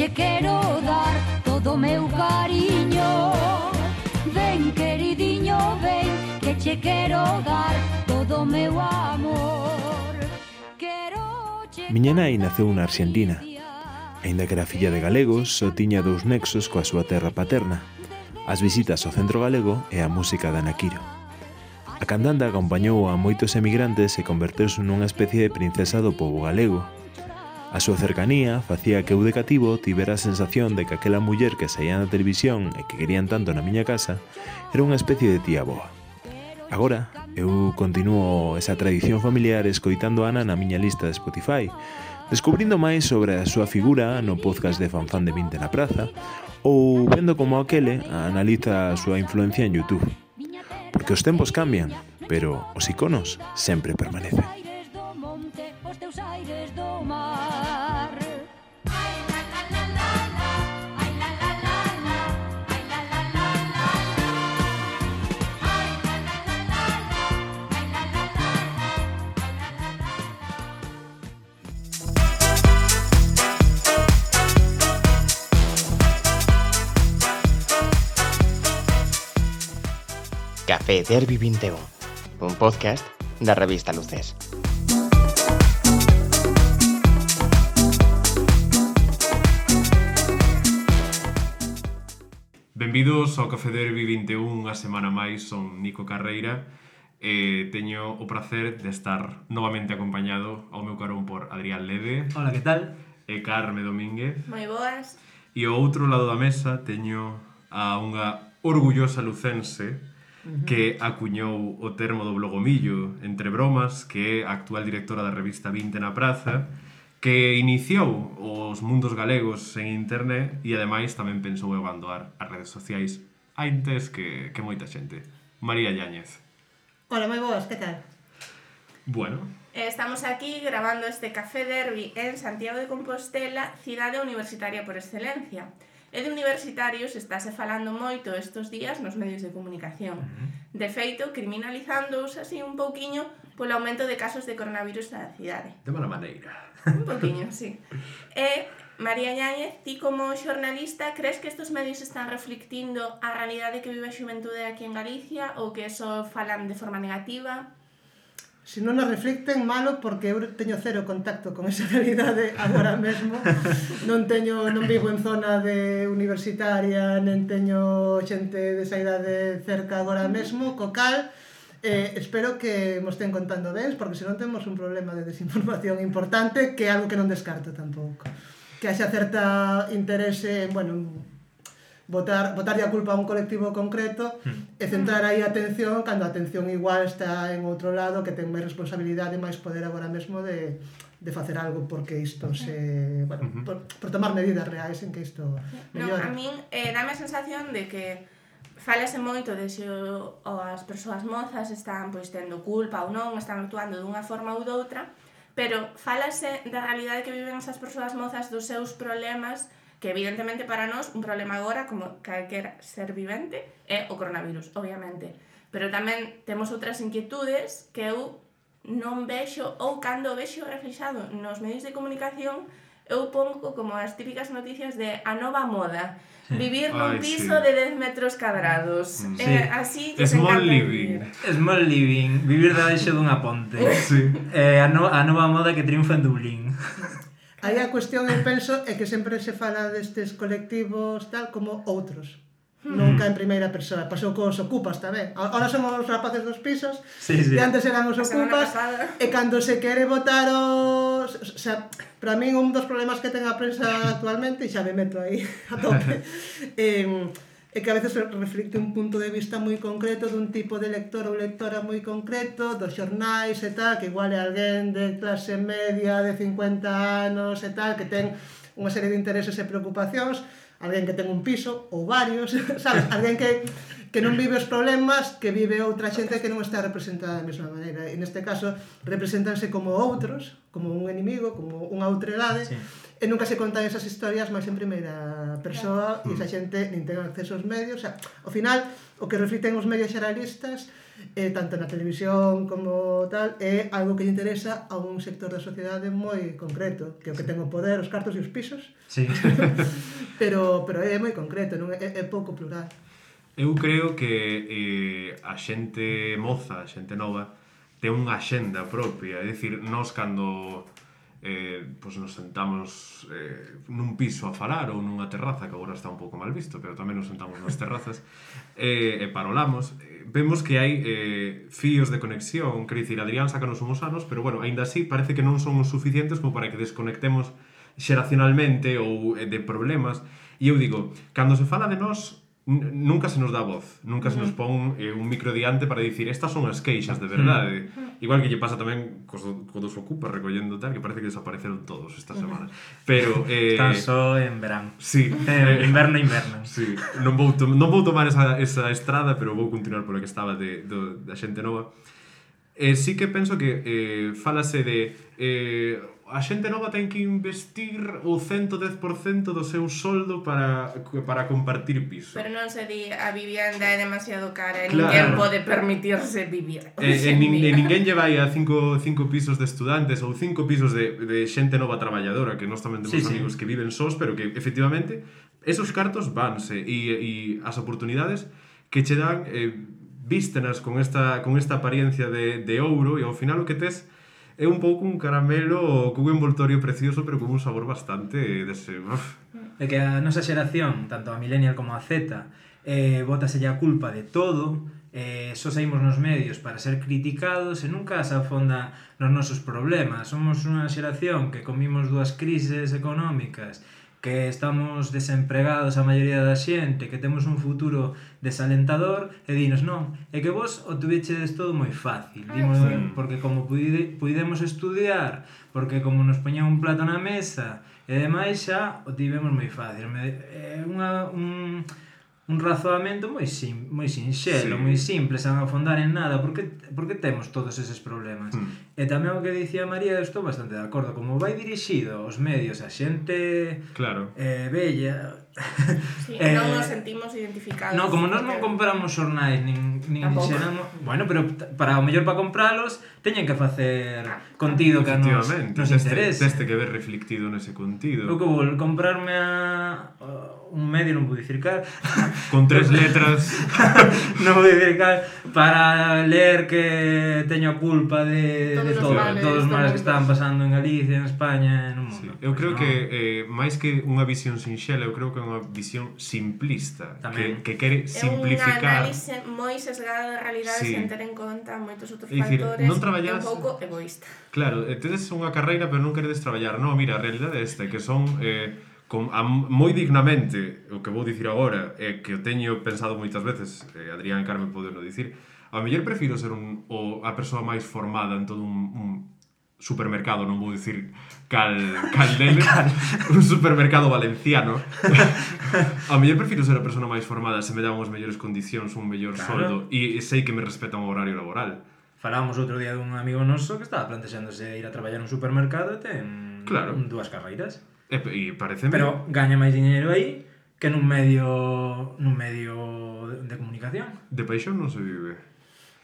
che quero dar todo o meu cariño. Ven, queridiño, ven, que che quero dar todo o meu amor. Miña nai naceu na Arxentina. Aínda que era filla de galegos, só tiña dous nexos coa súa terra paterna: as visitas ao centro galego e a música de Ana Quiro. A cantante acompañou a moitos emigrantes e converteuse nunha especie de princesa do pobo galego. A súa cercanía facía que eu de cativo tivera a sensación de que aquela muller que saía na televisión e que querían tanto na miña casa era unha especie de tía boa. Agora, eu continuo esa tradición familiar escoitando a Ana na miña lista de Spotify, descubrindo máis sobre a súa figura no podcast de Fanfán de 20 na praza ou vendo como aquele analiza a súa influencia en YouTube. Porque os tempos cambian, pero os iconos sempre permanecen. Café Derbi 21, un podcast da revista Luces. Benvidos ao Café Derbi 21, unha semana máis. Son Nico Carreira e teño o prazer de estar novamente acompañado ao meu carón por Adrián Lede. Hola, que tal? E Carme Domínguez. Moi boas. E ao outro lado da mesa teño a unha orgullosa lucense que acuñou o termo do blogomillo entre bromas, que é a actual directora da revista 20 na praza, que iniciou os mundos galegos en internet e ademais tamén pensou en abandonar as redes sociais antes que moita xente. María Yáñez. Hola, moi boas, que tal? Bueno. Estamos aquí grabando este Café Derbi en Santiago de Compostela, cidade universitaria por excelencia. E de universitarios estáse falando moito estes días nos medios de comunicación. De feito, criminalizándose así un pouquiño polo aumento de casos de coronavirus na cidade. De mala maneira. Un pouquiño, sí. E, María Yáñez, ti como xornalista, crees que estes medios están reflectindo a realidade que vive a xuventude aquí en Galicia ou que eso falan de forma negativa? Se non nos reflicten, malo, porque eu teño cero contacto con esa realidade agora mesmo. Non vivo en zona de universitaria, nen teño xente desa idade cerca agora mesmo, co cal espero que mo estén contando ben, porque senón temos un problema de desinformación importante, que é algo que non descarto tampouco. Que haxa certa interese en, botarlle a culpa a un colectivo concreto e centrar aí a atención cando a atención igual está en outro lado, que ten máis responsabilidade e máis poder agora mesmo de facer algo porque isto se... por tomar medidas reais en que isto mellore. A min dame a sensación de que falase moito de se as persoas mozas están tendo culpa ou non, están actuando dunha forma ou doutra, pero falase da realidade que viven esas persoas mozas, dos seus problemas, que evidentemente para nós un problema agora, como calquer ser vivente, é o coronavirus, obviamente. Pero tamén temos outras inquietudes que eu non vexo, ou cando vexo reflexado nos medios de comunicación, eu pongo como as típicas noticias de a nova moda. Vivir nun piso de 10 metros cadrados. Así que Small living. Small living, vivir debaixo dunha ponte. Sí. A nova moda que triunfa en Dublín. Aí a cuestión, eu penso, é que sempre se fala destes colectivos tal como outros. Nunca en primeira persoa. Pasou cos ocupas tamén. Ahora somos os rapaces dos pisos, sí. E antes eran os ocupas, e cando se quere votar os... O sea, para min un dos problemas que ten a prensa actualmente, e xa me meto aí a tope, é que a veces reflicte un punto de vista moi concreto dun tipo de lector ou lectora moi concreto, dos xornais e tal, que igual é alguén de clase media de 50 anos e tal, que ten unha serie de intereses e preocupacións. alguén que ten un piso ou varios, sabes? Alguén que non vive os problemas que vive outra xente que non está representada da mesma maneira. E neste caso, representanse como outros, como un enemigo, como unha outredade, e nunca se contan esas historias máis en primeira persoa e esa xente nin ten acceso aos medios. O sea, ao final, o que reflicten os medios xeralistas, tanto na televisión como tal, é algo que lle interesa a un sector da sociedade moi concreto, que é o que ten o poder, os cartos e os pisos, pero é moi concreto, non é pouco plural. Eu creo que a xente moza, a xente nova, ten unha axenda propia. É dicir, nós cando nos sentamos nun piso a falar ou nunha terraza, que agora está un pouco mal visto, pero tamén nos sentamos nas terrazas, e parolamos, vemos que hai fíos de conexión. Quer dicir, Adrián sácanos unhos anos, pero bueno, aínda así parece que non son os suficientes como para que desconectemos xeracionalmente ou de problemas. E eu digo, cando se fala de nós, nunca se nos dá voz, nunca se nos pon un micro diante para dicir estas son as queixas de verdade. Igual que lle pasa tamén cos dos ocupas recollendo tal, que parece que desapareceron todos estas semanas. Pero están só en verán. Sí, inverno. Sí, non vou tomar esa estrada, pero vou continuar pola que estaba da xente nova. Sí que penso que falase de a xente nova ten que investir o 110% do seu soldo para compartir piso. Pero non se di a vivienda é demasiado cara e ninguén pode permitirse vivir. Ninguén lle vai a 5 pisos de estudantes ou 5 pisos de xente nova traballadora, que nós tamén temos amigos que viven sós, pero que efectivamente esos cartos vanse e as oportunidades que che dan vístenas con esta apariencia de ouro, e ao final o que tes é un pouco un caramelo cun envoltorio precioso, pero con un sabor bastante dese... É que a nosa xeración, tanto a millennial como a Z, bótaselle a culpa de todo, só saímos nos medios para ser criticados e nunca se afonda nos nosos problemas. Somos unha xeración que comimos 2 crises económicas, que estamos desempregados a maioría da xente, que temos un futuro desalentador, e dinos, non, é que vos o tuvechedes todo moi fácil, porque como puidemos estudiar, porque como nos poñan un plato na mesa, e demais xa o tivemos moi fácil. É un razoamento moi sinxelo, moi simple, sen afondar en nada, porque temos todos eses problemas. E tamén o que dicía María, estou bastante de acordo, como vai dirixido os medios a xente bella, non nos sentimos identificados. No, como nós non compramos xornais nin xeramos, bueno, pero para o mellor para compralos teñen que facer contido que nos interese. Teste que ver reflectido nese contido. Eu que vou comprarme un medio, non vou dicir cal, con 3 letras non vou dicir cal, para ler que teño a culpa de todos os males que estaban pasando en Galicia, en España, no mundo. Eu creo que máis que unha visión sinxela, eu creo que é unha visión simplista, que quere simplificar. É un análise moi sesgado da realidade sen ter en conta moitos outros factores, non traballas, un pouco egoísta. Claro, tedes unha carreira pero non queredes traballar. Non, mira, a realidade é esta, que son moi dignamente, o que vou dicir agora, que o teño pensado moitas veces, Adrián e Carmen poden o dicir, a mellor prefiro ser a persoa máis formada en todo un supermercado, non vou dicir cal deles, un supermercado valenciano. A mellor prefiro ser a persona máis formada se me dan unhas mellores condicións, un mellor soldo, e sei que me respetan o horario laboral. Falábamos outro día dun amigo noso que estaba plantexándose ir a traballar nun supermercado e ten 2 carreiras. E pareceme... Pero gaña máis diñeiro aí que nun medio de comunicación. De paixón non se vive.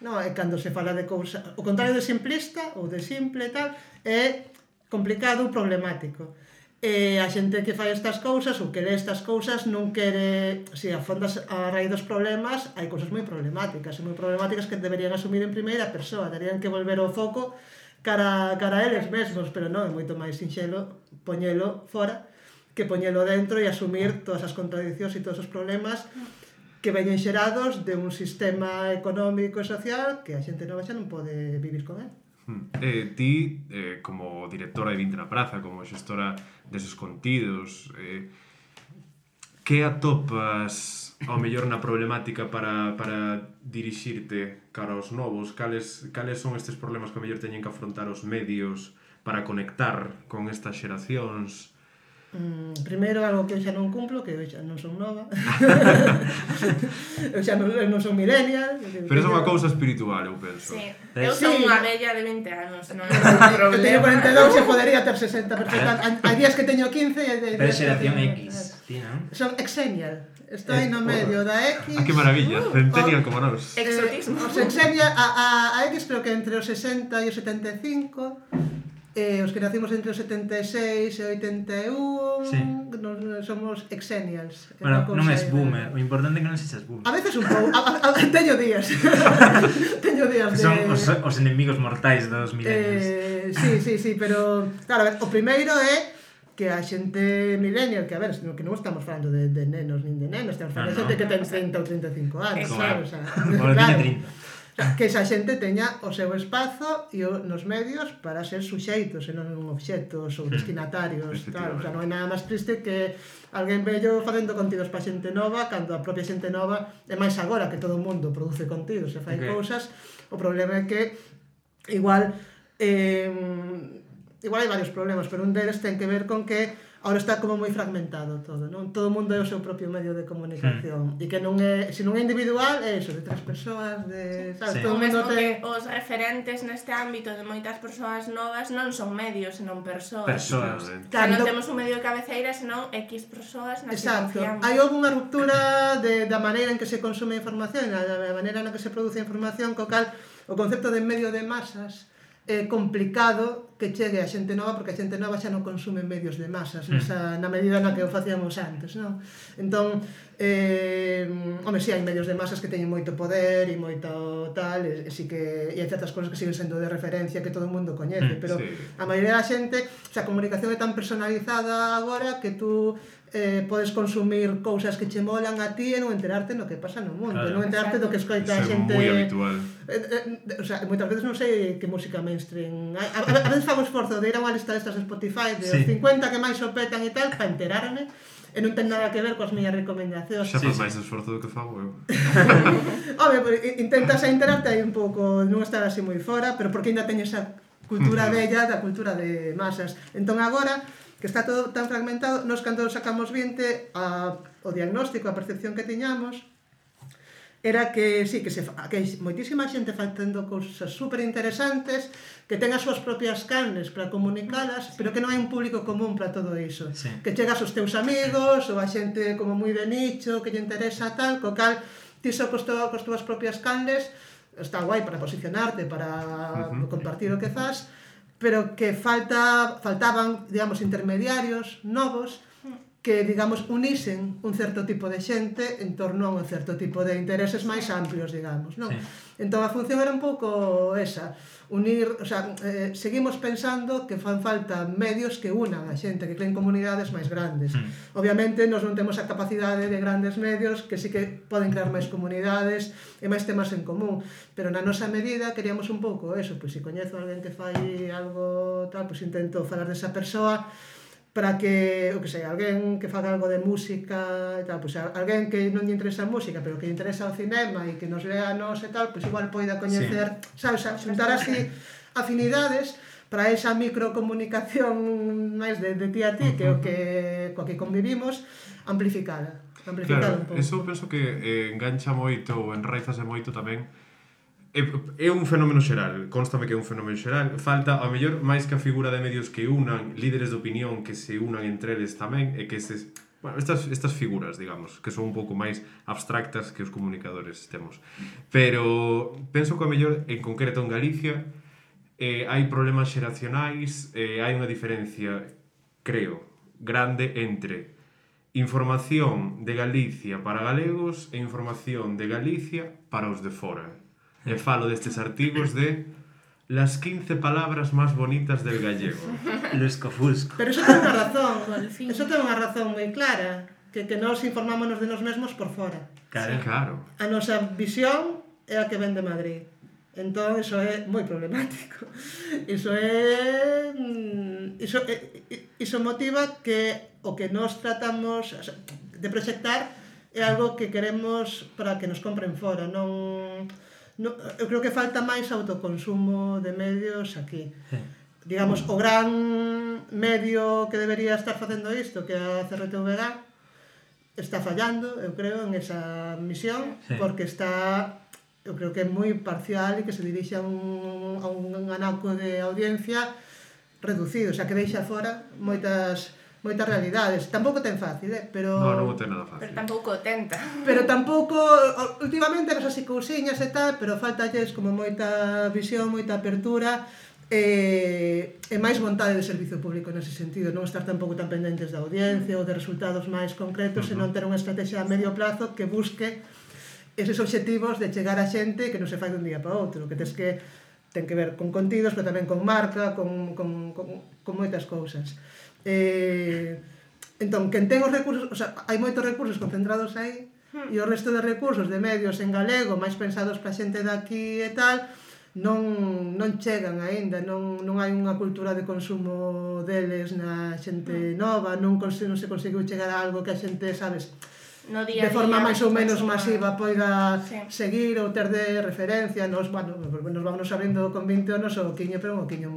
No, é cando se fala de cousa, o contrario de simplista ou de simple tal, é complicado ou problemático. E a xente que fai estas cousas ou que lee estas cousas non quere, se afondas a raíz dos problemas, hai cousas moi problemáticas que deberían asumir en primeira persoa, terían que volver o foco cara a eles mesmos, pero non, é moito máis sinxelo poñelo fora que poñelo dentro e asumir todas as contradicións e todos os problemas que veñen xerados de un sistema económico e social que a xente nova xa non pode vivir con él. Ti, como directora de Vinte na Praza, como xestora deses contidos, que atopas ao mellor na problemática para dirixirte cara aos novos? Cales son estes problemas que ao mellor teñen que afrontar os medios para conectar con estas xeracións? Primeiro, algo que eu xa non cumplo, que eu xa non son nova. Eu xa non son millennial. Pero é unha cousa espiritual, eu penso. Sí. Eu son unha bella de 20 anos, non é un Eu teño problema. 42 e podería ter 60 perfectamente. Hai días que teño 15 e... Pero xeración X, ti, non? Son exenial. Estou aí no medio da X. Ah, que maravilla, centennial como nós. Exotismo. Os exenial, a X creo que entre os 60 e os 75. Os que nacimos entre os 76 e 81 Sí. somos exenials. Bueno, non és boomer, o importante é que non sexas boomer. A veces un pouco, teño días. Teño días Que son os enemigos mortais dos millennials. Sí, pero claro, a ver, o primeiro é que a xente millennial, que a ver, que non estamos falando de nenos nin de nenos, estamos falando de xente que ten 30 ou 35 anos, Claro. o sea, Bueno, claro. tiña 30. Que esa xente teña o seu espazo e nos medios para ser suxeitos e non obxectos ou destinatarios, claro, o sea, non hai nada máis triste que alguén vello facendo contidos para xente nova cando a propia xente nova é máis agora que todo o mundo produce contidos e fai cousas. O problema é que igual hai varios problemas, pero un deles ten que ver con que ahora está como moi fragmentado todo, non? Todo o mundo é o seu propio medio de comunicación e que non é, se non é individual, é iso, de tres persoas, de, sabes, Sí. todo O o mundo mesmo que ten... os referentes neste ámbito de moitas persoas novas non son medios, senón persoas. Persoas. O sea, Claro, non entón- temos un medio de cabeceira, senón X persoas nas que Exacto. confiamos. Hai unha ruptura da maneira en que se consume a información, da maneira na que se produce a información, co cal o concepto de medio de masas é complicado que chegue a xente nova, porque a xente nova xa non consume medios de masas na medida na que o facíamos antes, non? Entón, home, si hai medios de masas que teñen moito poder e moito tal, e si que e hai certas cousas que siguen sendo de referencia que todo o mundo coñece, pero sí. a maioría da xente, o sea, a comunicación é tan personalizada agora que tú podes consumir cousas que che molan a ti e non enterarte no que pasa no mundo, Claro. non enterarte do que escoita a Iso é xente. moi habitual. O sea, moitas veces non sei que música mainstream. A veces fago esforzo de ir a unha lista destas de Spotify de Sí. os 50 que máis o petan e tal, para enterarme, e non ten nada que ver coas miñas recomendacións. Xa faz máis esforzo do que fago eu. Home, intentas a enterarte aí un pouco, non estar así moi fora, pero porque ainda teño esa cultura bella da cultura de masas. Entón agora, que está todo tan fragmentado, nos cando sacamos 20 o diagnóstico, a percepción que tiñamos, era que sí, que hai moitísima xente facendo cousas super interesantes, que ten as súas propias canles para comunicalas, pero que non hai un público común para todo iso. Sí. Que chegas aos teus amigos, ou a xente como moi de nicho, que lle interesa tal, co cal ti só cos túas propias canles, está guai para posicionarte, para compartir o que fas, pero que faltaban, digamos, intermediarios novos que, digamos, unisen un certo tipo de xente en torno a un certo tipo de intereses máis amplios, digamos, non? Sí. Entón a función era un pouco esa, unir, o sea, seguimos pensando que fan falta medios que unan a xente, que creen comunidades máis grandes. Obviamente, nós non temos a capacidade de grandes medios que sí que poden crear máis comunidades e máis temas en común, pero na nosa medida queríamos un pouco eso, pois se coñezo a alguén que fai algo tal, pois intento falar desa persoa para que, o que sei, alguén que faga algo de música e tal, pois alguén que non lle interesa a música, pero que lle interesa o cinema e que nos lea a nos e tal, pois igual poida coñecer, sabes, xuntar así afinidades para esa microcomunicación máis de ti a ti, que é o que coa que convivimos, amplificada Claro, un pouco. eso penso que engancha moito ou enraizase moito tamén. É un fenómeno xeral, constame que é un fenómeno xeral. Falta, ao mellor, máis que a figura de medios que unan, líderes de opinión que se unan entre eles tamén, e que bueno, estas figuras, digamos, que son un pouco máis abstractas que os comunicadores temos. Pero penso que ao mellor, en concreto en Galicia, hai problemas xeracionais, hai unha diferencia, creo, grande entre información de Galicia para galegos e información de Galicia para os de fora. E falo destes artigos de las 15 palabras más bonitas del gallego. Lusco-fusco. Pero eso ten unha razón, Golfín. eso ten unha razón moi clara, que nos informámonos de nos mesmos por fora. Claro. Claro. A nosa visión é a que ven de Madrid. Entón, iso é moi problemático. Iso motiva que o que nos tratamos de proxectar é algo que queremos para que nos compren fora. Eu creo que falta máis autoconsumo de medios aquí. Sí. digamos, o gran medio que debería estar facendo isto, que é a CRTVG, está fallando, eu creo, en esa misión, porque está, eu creo que é moi parcial e que se dirixe a un anaco de audiencia reducido, o sea, que deixa fora moitas realidades. Tampouco ten fácil, pero... Non o ten nada fácil. Pero tampouco o tenta. Pero tampouco, últimamente, ves así cousiñas e tal, pero faltalles como moita visión, moita apertura e máis vontade de servizo público nese sentido, non estar tampouco tan pendentes da audiencia ou de resultados máis concretos, senón ter unha estrategia a medio plazo que busque eses obxectivos de chegar a xente que non se fai dun día para outro, que ten que ver con contidos, pero tamén con marca, con moitas cousas. Entón, quen ten os recursos, o sea, hai moitos recursos concentrados aí e o resto de recursos de medios en galego máis pensados para xente daqui e tal non chegan aínda, non hai unha cultura de consumo deles na xente nova, non se conseguiu chegar a algo que a xente, sabes, de forma máis ou menos masiva poida seguir ou ter de referencia. Nos vamos abrindo con 20 anos o oquiño, pero un oquiño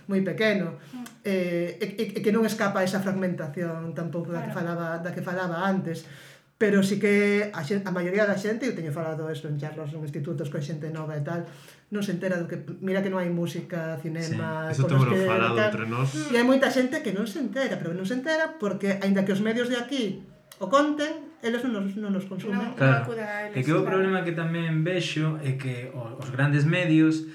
moi pequeno, e que non escapa esa fragmentación tampouco da que falaba antes, pero sí que a maioría da xente, eu teño falado isto en charlas en institutos con xente nova e tal, non se entera do que, mira que non hai música, cinema, eso temos falado entre nós, e hai moita xente que non se entera, pero non se entera porque aínda que os medios de aquí o conten, eles non nos consumen. Claro, é que o problema que tamén vexo é que os grandes medios,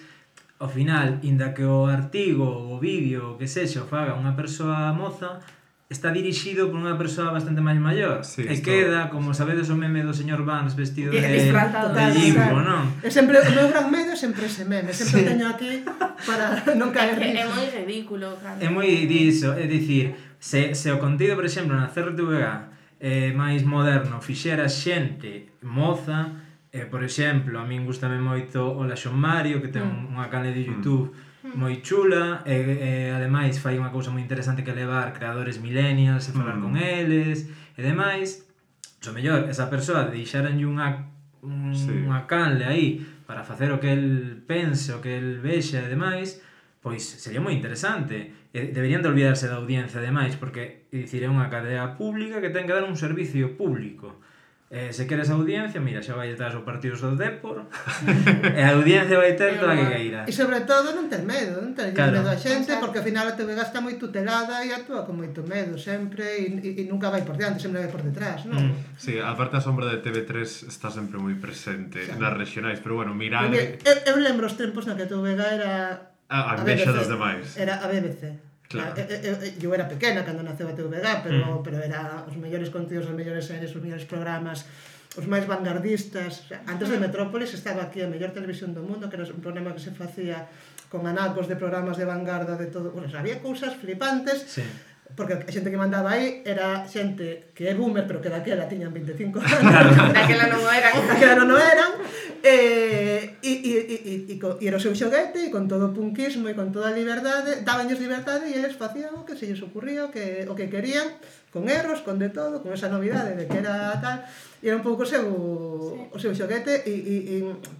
ao final, inda que o artigo, o vídeo, o que sexa, o faga unha persoa moza, está dirixido por unha persoa bastante máis maior. E queda, como sabedes o meme do señor Vance vestido de limpo, non? O meu gran medio é sempre ese meme, sempre teño aquí para non caer nisso. É moi ridículo, claro. É moi diso, é dicir, se o contido, por exemplo, na CRTVG máis moderno fixera xente moza, por exemplo, a min gustame moito o Laxon Mario, que ten unha canle de YouTube moi chula, e ademais fai unha cousa moi interesante que levar creadores millennials e falar con eles e demais. O mellor, esa persoa deixaranlle unha canle aí para facer o que el pense, o que el vexa e demais, pois sería moi interesante. Deberían de olvidarse da audiencia ademais, porque dicir, é unha cadea pública que ten que dar un servicio público. Se queres audiencia, mira, xa vai detrás os partidos do Dépor e a audiencia vai ter toda a que queira. E sobre todo non ter medo, non ter medo a xente, porque ao final a TVG está moi tutelada e actúa con moito medo sempre e nunca vai por diante, sempre vai por detrás, non? Sí, a parte a sombra de TV3 está sempre moi presente nas regionais, pero bueno, mirad... Eu lembro os tempos na que a TVG era... A envexa dos demais. Era a BBC. Claro. Eu era pequena cando naceu a TVG, pero era os mellores contidos, os mellores series, os mellores programas, os máis vanguardistas. Antes de Metrópolis estaba aquí a mellor televisión do mundo, que era un programa que se facía con anacos de programas de vanguarda de todo. Bueno, había cousas flipantes, porque a xente que mandaba aí era xente que é boomer, pero que daquela tiñan 25 anos. Daquela non o eran. Daquela non o eran. E era o seu xoguete, e con todo o punkismo e con toda a liberdade, dabanlles liberdade e eles facían o que se lles ocurría, o que querían, con erros, con de todo, con esa novidade de que era tal, e era un pouco o seu xoguete,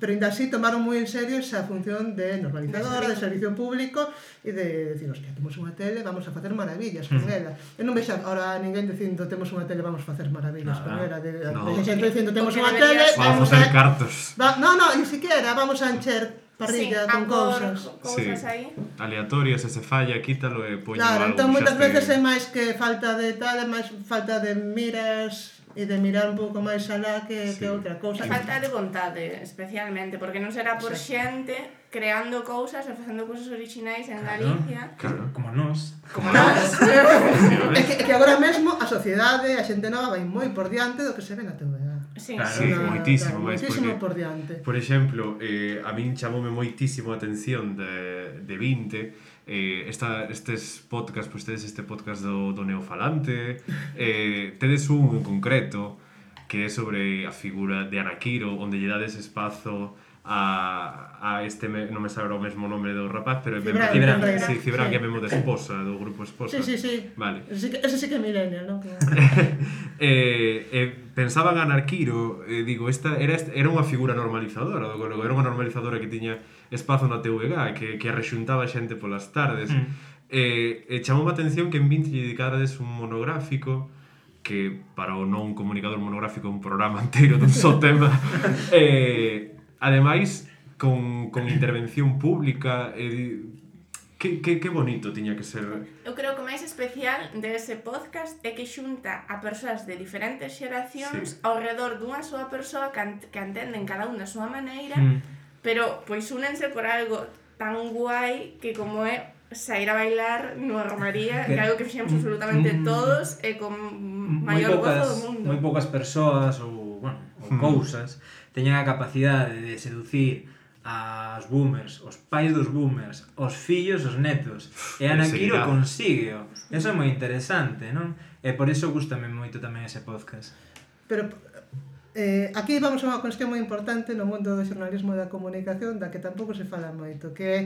pero ainda así tomaron moi en serio esa función de normalizadora, de servicio público, e de decir, hostia, temos unha tele, vamos a facer maravillas con ela. Eu non vexo ahora ninguén dicindo, temos unha tele, vamos a facer maravillas con ela. De xente dicindo, temos unha tele, vamos a facer cartos. Non, ni siquiera, vamos a encher parrilla con cousas aí aleatorias, se falla, quítalo e poño algo. Claro, entón moitas veces é máis que falta de tal, é máis falta de miras e de mirar un pouco máis alá que outra cousa. Falta de vontade, especialmente, porque non será por xente creando cousas e facendo cousas originais en Galicia. Claro, como nós. É que agora mesmo a sociedade, a xente nova vai moi por diante do que se ve na TVG. Sí, moitísimo por diante. Por exemplo, a min chamoume moitísimo a atención de 20 estes podcast, pois tedes este podcast do Neofalante, tedes un en concreto que é sobre a figura de Ana Quiro, onde lle dades espazo a este, non me sabe o mesmo nome do rapaz, pero Cibran, que é mesmo de Esposa, do grupo Esposa. Sí. Vale. Ese sí que é millennial, non? Pensaba en Anarquiro, digo, era unha figura normalizadora do galego, era unha normalizadora que tiña espazo na TVG, que arrexuntaba xente polas tardes. Chamou a atención que en 20 lle dedicarades un monográfico que para o non comunicador monográfico é un programa inteiro dun só tema. Ademais, con intervención pública, que bonito tiña que ser. Eu creo que o máis especial dese podcast é que xunta a persoas de diferentes xeracións ao redor dunha súa persoa que entenden cada unha a súa maneira, pero pois únense por algo tan guai que como é sair a bailar nunha romaría, que é algo que fixemos absolutamente todos e con maior gozo do mundo. Moi poucas persoas ou cousas teñen a capacidade de seducir aos boomers, os pais dos boomers, os fillos, os netos. E Anarquiro consígueo. Eso é moi interesante, non? E por iso gustame moito tamén ese podcast. Pero aquí vamos a unha cuestión moi importante no mundo do xornalismo e da comunicación da que tampouco se fala moito, que é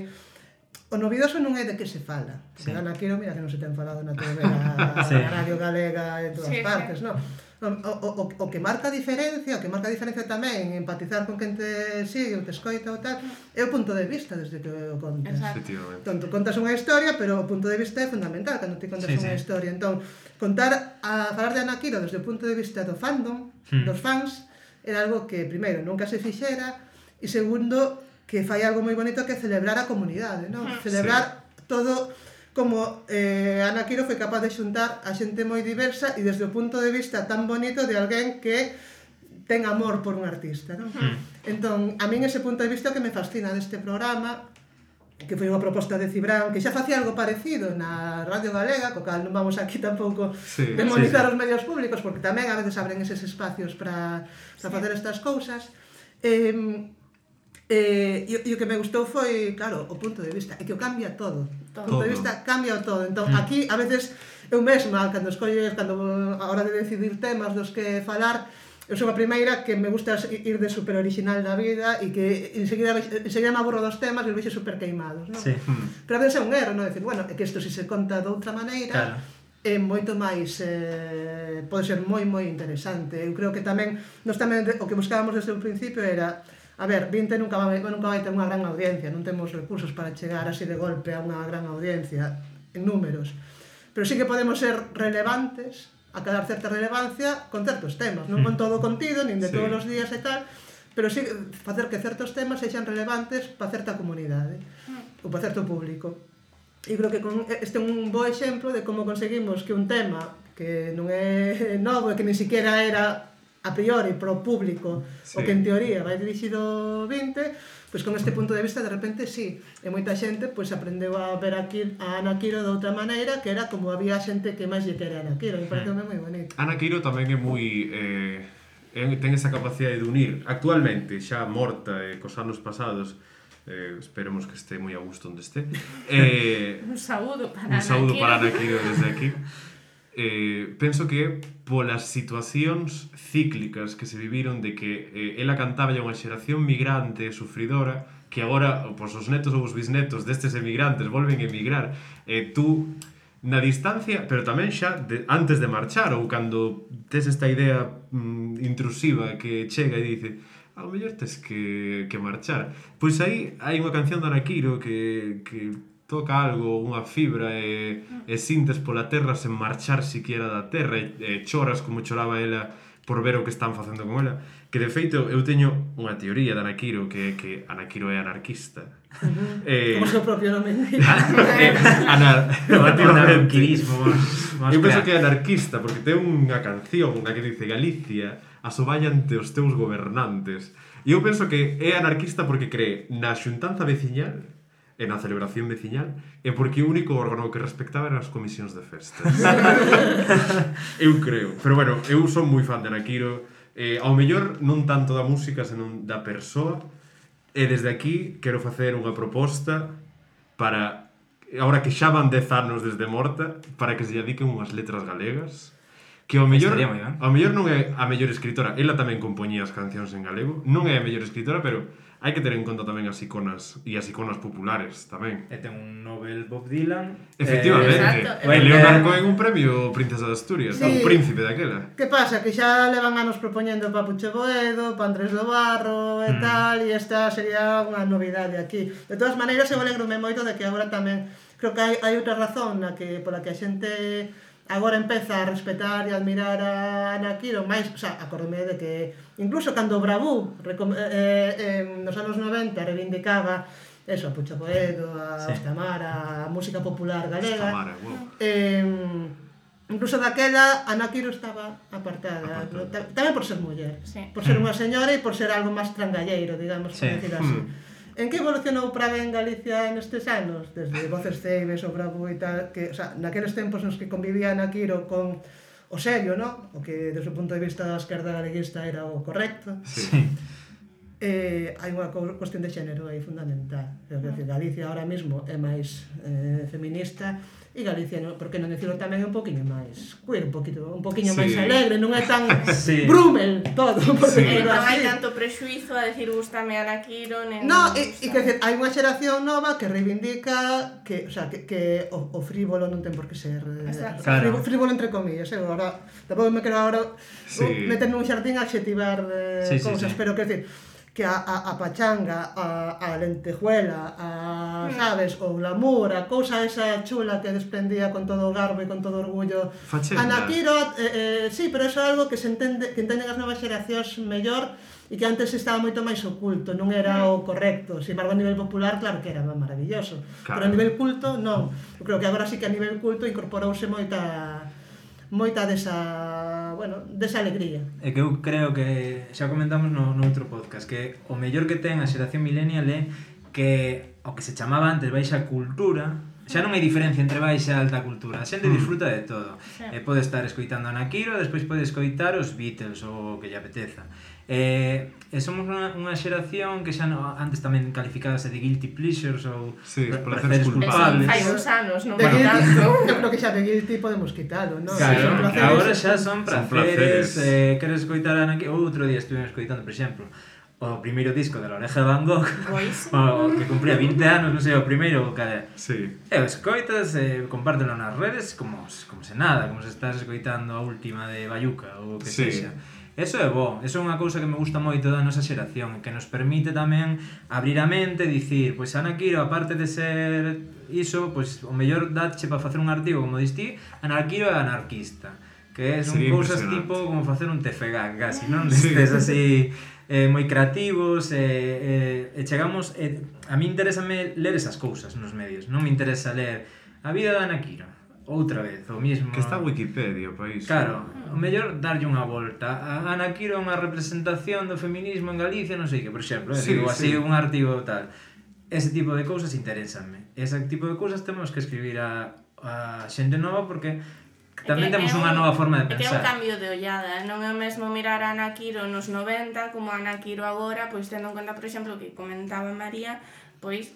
o novidoso non é de que se fala. Sí. Anarquiro, mira que non se ten falado na TV, na Radio Galega, en todas partes, non? O que marca a diferencia, tamén empatizar con quen te sigue, o te escoita ou tal, é o punto de vista desde que o contas. Entón, contas unha historia, pero o punto de vista é fundamental cando te contas unha historia. Entón, falar de Anarquiro desde o punto de vista do fandom, dos fans, era algo que, primeiro, nunca se fixera, e segundo, que fai algo moi bonito que é celebrar a comunidade, non? Celebrar todo como Anarquiro foi capaz de xuntar a xente moi diversa e desde o punto de vista tan bonito de alguén que ten amor por un artista, non? Entón, a min ese punto de vista que me fascina deste programa, que foi unha proposta de Cibran, que xa facía algo parecido na Radio Galega, co cal non vamos aquí tampouco demonizar os medios públicos, porque tamén a veces abren eses espacios para facer estas cousas. E o que me gustou foi, claro, o punto de vista, é que o cambia todo. O punto de vista cambia todo. Entón, aquí, a veces, eu mesma, cando a hora de decidir temas dos que falar, eu sou a primeira que me gusta ir de super original da vida e que enseguida me aburro dos temas e os vexo super queimados, non? Sí. Pero a veces é un erro, non? Decir, bueno, é que isto se conta de outra maneira, é moito máis, pode ser moi interesante. Eu creo que tamén, o que buscábamos desde o principio era, a ver, 20 nunca vai ter unha gran audiencia, non temos recursos para chegar así de golpe a unha gran audiencia en números, pero sí que podemos ser relevantes, acadar certa relevancia con certos temas, non con todo o contido, nin de todos os días e tal, pero sí facer que certos temas sexan relevantes para certa comunidade ou para certo público. E creo que este é un bo exemplo de como conseguimos que un tema que non é novo e que ni siquiera era a priori pro público o que en teoría vai dirixido 20, pois con este punto de vista de repente e moita xente pois aprendeu a ver a Anarquiro de outra maneira, que era como había xente que máis lle quere a Anarquiro, me parece moi bonito. Anarquiro tamén é moi ten esa capacidade de unir actualmente, xa morta cos anos pasados, esperemos que este moi a gusto onde este. Un saúdo para Anarquiro desde aquí. Penso que polas situacións cíclicas que se viviron de que ela cantaba a unha xeración migrante sufridora que agora pois, os netos ou os bisnetos destes emigrantes volven a emigrar, tú na distancia, pero tamén xa antes de marchar ou cando tes esta idea intrusiva que chega e dice ao mellor tes que marchar, pois aí hai unha canción de Anarquiro que toca algo, unha fibra e sintes pola terra sen marchar siquiera da terra e choras como choraba ela por ver o que están facendo con ela, que de feito eu teño unha teoría de Anarquiro que Anarquiro é anarquista. Como seu propio nome anarquismo. Eu penso que é anarquista porque ten unha canción na que dice Galicia asoballante os teus gobernantes, e eu penso que é anarquista porque cree na xuntanza veciñal e na celebración veciñal, e porque o único órgano que respectaba eran as comisións de festas. Eu creo. Pero bueno, eu son moi fan de Anarquiro, ao mellor non tanto da música, senón da persoa, e desde aquí quero facer unha proposta para, agora que xa van 10 anos desde morta, para que se lle dediquen unhas letras galegas, que ao mellor non é a mellor escritora, ela tamén compoñía as cancións en galego, non é a mellor escritora, pero hai que ter en conta tamén as iconas e as iconas populares tamén. E ten un Nobel Bob Dylan. Efectivamente. Exacto. Leonardo Cohen un premio Princesa de Asturias, Sí. o príncipe daquela. Que pasa? Que xa levan anos propoñendo para Puche Boedo, para Andrés do Barro e tal, e esta sería unha novidade aquí. De todas maneiras, eu alegro-me moito de que agora tamén, creo que hai outra razón pola que a xente agora empeza a respetar e admirar a Ana Quiro, máis, o sea, acordome de que incluso cando Bravú nos anos 90 reivindicaba eso, a Puche Boedo, a Ostamar, a música popular galega. Ostamar, Incluso daquela, Ana Quiro estaba apartada. Tamén por ser muller. Sí. Por ser unha señora e por ser algo máis trangalleiro, digamos, por decir así. En que evolucionou para ben Galicia nestes anos? Desde Voces Ceibes, o Bravo e tal, que, o sea, naqueles tempos nos que convivía Ana Quiro con o serio, ¿no? O que, desde o punto de vista da esquerda galeguista, era o correcto. Sí. Hai unha cuestión de xénero aí fundamental. É dicir, Galicia ahora mismo é máis feminista e Galicia, por que non dicirlo tamén, un poquinho máis queer, un poquinho máis alegre, non é tan brumel todo, por decirlo Non así. hai tanto prexuizo a decir gústame Ana Quiro, nen... No, e que decir, hai unha xeración nova que reivindica que, o sea, que o frívolo non ten por que ser Claro. frívolo entre comillas, agora tampouco me quero agora meter nun xardín a adxetivar cousas, pero que decir que a pachanga, a lentejuela, sabes, o glamour, a cousa esa chula que desprendía con todo o garbo e con todo o orgullo. Fachenda. Ana Quiro, sí, pero eso é algo que que entenden as novas xeracións mellor e que antes estaba moito máis oculto, non era o correcto. Sin embargo, a nivel popular, claro que era maravilloso. Claro. Pero a nivel culto, non. Eu creo que agora sí que a nivel culto incorporouse moita desa alegría. É que eu creo que xa comentamos no outro podcast que o mellor que ten a xeración millennial é que o que se chamaba antes baixa cultura, xa non hai diferencia entre baixa e alta cultura, a xente disfruta de todo. Pode estar escoitando a Ana Quiro, despois pode escoitar os Beatles ou o que lle apeteza. Somos unha xeración que xa antes tamén calificábase de guilty pleasures ou placeres culpables. Hai uns anos, non De vai guilty, tanto. eu creo que xa de guilty podemos quitalo, non? Claro, Placeres. agora xa son placeres. Queres escoitar a Ana Quiro? Outro día estuve escoitando, por exemplo, o primeiro disco de La Oreja de Van Gogh, o que cumpría 20 anos, non sei, o primeiro, cada... Sí. E o escoitas, compártelo nas redes como se nada, como se estás escoitando a última de Bayuca ou o que sexa. Eso é bo, eso é unha cousa que me gusta moito da nosa xeración, que nos permite tamén abrir a mente e dicir, pois Ana Quiro, aparte de ser iso, pois o mellor datche para facer un artigo, como dis ti, Ana Quiro é anarquista, que son cousas tipo como facer un TFG, casi, non? Destes así moi creativos, e chegamos, a mí interésame ler esas cousas nos medios, non me interesa ler a vida da Ana Quiro, outra vez, o mismo... Que está Wikipedia, país. Claro, o mellor darlle unha volta. A Ana Quiro é unha representación do feminismo en Galicia, non sei que, por exemplo, digo así un artigo tal. Ese tipo de cousas interésame. Ese tipo de cousas temos que escribir a xente nova porque tamén temos unha nova forma de É pensar. un cambio de ollada, non é o mesmo mirar a Ana Quiro nos 90 como a Ana Quiro agora, pois tendo en conta, por exemplo, que comentaba María, pois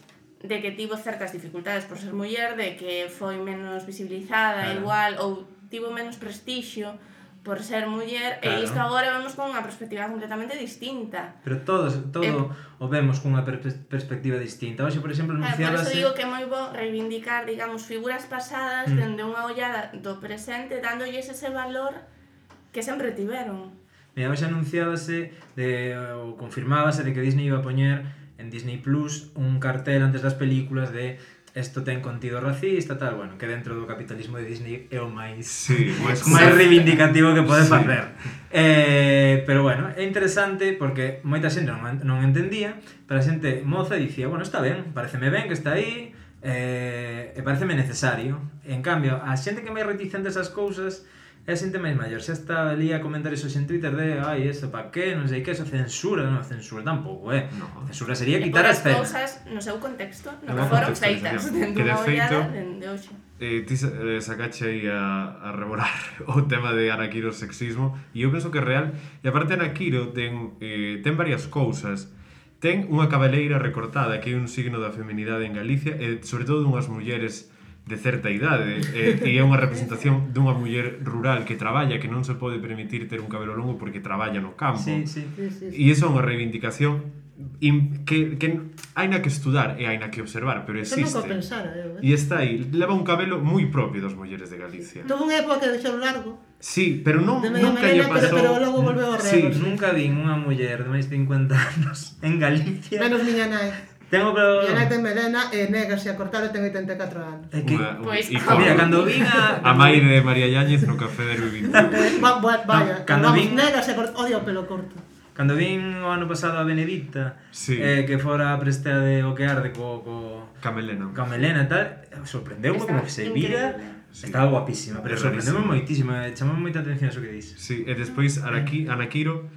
de que tivo certas dificultades por ser muller, de que foi menos visibilizada, igual, ou tivo menos prestixio por ser muller, e isto agora vemos con unha perspectiva completamente distinta. Pero todo o vemos cunha perspectiva distinta. Hoxe, por exemplo, Por anunciábase... eso digo que é moi bo reivindicar, digamos, figuras pasadas dende unha ollada do presente, dándolles ese valor que sempre tiveron. Mira, hoxe anunciábase ou confirmábase de que Disney iba a poñer en Disney Plus un cartel antes das películas de esto ten contido racista, tal, bueno, que dentro do capitalismo de Disney é o máis máis reivindicativo que pode facer. Pero bueno, é interesante porque moita xente non entendía, pero a xente moza dicía, bueno, está ben, pareceme ben que está aí, e pareceme necesario. En cambio, a xente que é máis reticente a esas cousas é a xente máis maior, xa está ali a comentar eso en Twitter de ai, eso, pa que, non sei que, eso censura, non, censura tampouco, censura sería quitar a escena. E cousas no seu contexto, no que foron feitas, dentro unha ollada dende hoxe. Ti sacache aí a revorar o tema de Ana Quiro sexismo, e eu penso que é real, e aparte Ana Quiro ten varias cousas. Ten unha cabeleira recortada, que é un signo da feminidade en Galicia, e sobre todo dunhas mulleres de certa idade, e é unha representación dunha muller rural que traballa, que non se pode permitir ter un cabelo longo porque traballa no campo. Sí. E iso é unha reivindicación que haina que estudar e haina que observar, pero existe. Eso nunca pensara, E está aí, leva un cabelo moi propio das mulleres de Galicia. Tuvo unha época que deixou largo. Sí, pero non, De media nunca lle melena, pasou. pero logo volveu a Sí, rego. nunca vi unha muller de máis de 50 anos en Galicia. Menos miña nai. Tengo pero... Miña nai ten melena e negase a cortar e ten 84 anos. É que... Pois, Mira, cando vin A mãe de María Yáñez no café de Rubín. Vaya, Cando vamos, vin- negase a cortar, odio o pelo corto. Cando vin o ano pasado a Benedicta, Sí. que fora a prestea de O que arde co Camelena. Melena e tal, sorprendeume Está como que se vira. increíble. Sí. Estaba guapísima, pero É sorprendeume rarísimo. moitísimo, chamou moita atención eso que dis. Sí, e despois Anakiro,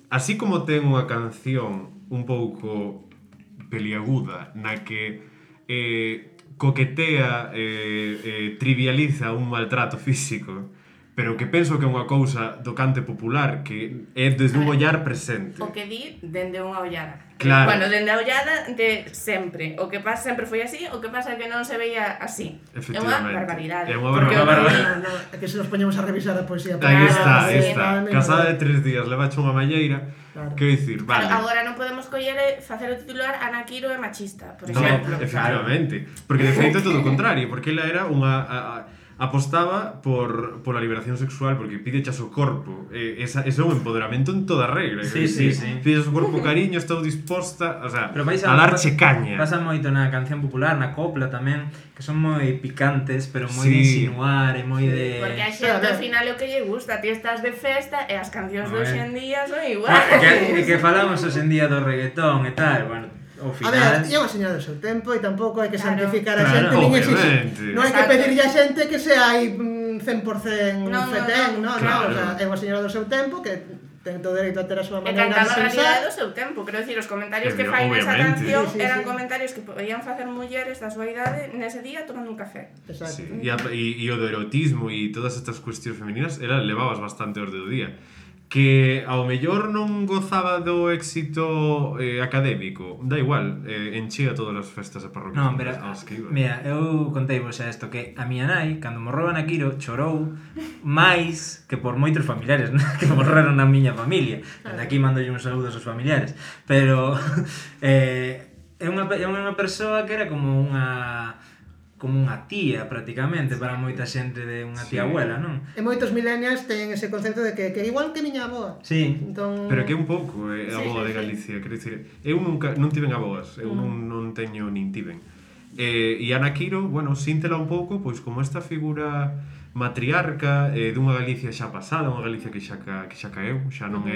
así como ten unha canción un pouco peliaguda na que coquetea, trivializa un maltrato físico, pero que penso que é unha cousa do cante popular que é desde un ollar presente. O que di dende unha ollada. Claro. Bueno, dende a ollada de sempre. O que pasa sempre foi así, o que pasa é que non se veía así. É unha Efectivamente. barbaridade. É unha Porque barbaridade. No, é que se nos poñemos a revisar a poesía. Aí está, aí sí, está. no, Casada de 3 días, levache unha malleira. Claro. Quero dicir, vale. Claro, agora non podemos coller e facer o titular Anakiro é machista, por No, exemplo. efectivamente. Porque de feito é todo o contrario, porque ela era unha apostaba pola liberación sexual porque pide chas o corpo. Ese é un empoderamento en toda regla. Sí, sí, sí. Pides o corpo cariño, estou disposta, o sea, Pero vais a darche caña. Pasa moito na canción popular, na copla tamén, que son moi picantes, pero moi Sí. de insinuar e moi de... Porque a xente ao final é o que lle gusta, ti estás de festa e as cancións de A ver. hoxe en día son igual. que falamos hoxe en día do reggaetón e tal, bueno, ao A final... ver, é unha señora do seu tempo e tampouco hai que Claro. santificar a Claro, xente nin obviamente. exixir. Non hai que Exacto. pedirlle a xente que sea aí 100% No, fetén, no, Claro. o sea, é unha señora do seu tempo que ten todo o dereito a ter a súa E maneira de cantando a realidade do pensar. seu tempo, quero dicir, os comentarios que Obvio- fai nesa obviamente. canción Sí, sí, eran sí. comentarios que podían facer mulleres da súa idade nese día tomando un café. Exacto. Sí. E o do erotismo e todas estas cuestións femininas, ela levabas bastante orde do día. Que ao mellor non gozaba do éxito académico, da igual, enchía todas as festas e parroquias Non, pero, aos que iba. mira, eu contei vos xa isto, que a miña nai, cando morreu Anakiro, chorou máis que por moitos familiares que morreron na miña familia. Desde aquí mandolle uns saludos aos familiares. Pero é unha persoa que era como unha tía prácticamente para moita xente de unha tía Sí. abuela, non? E moitos millennials teñen ese concepto de que igual que miña avoa. Sí. Entón, Pero que un pouco a boa de Galicia, quero dicir, eu nunca non tiven aboas, eu non teño nin tiven. E Anakiro, bueno, síntela un pouco pois como esta figura matriarca dunha Galicia xa pasada, unha Galicia que xa caeu, xa non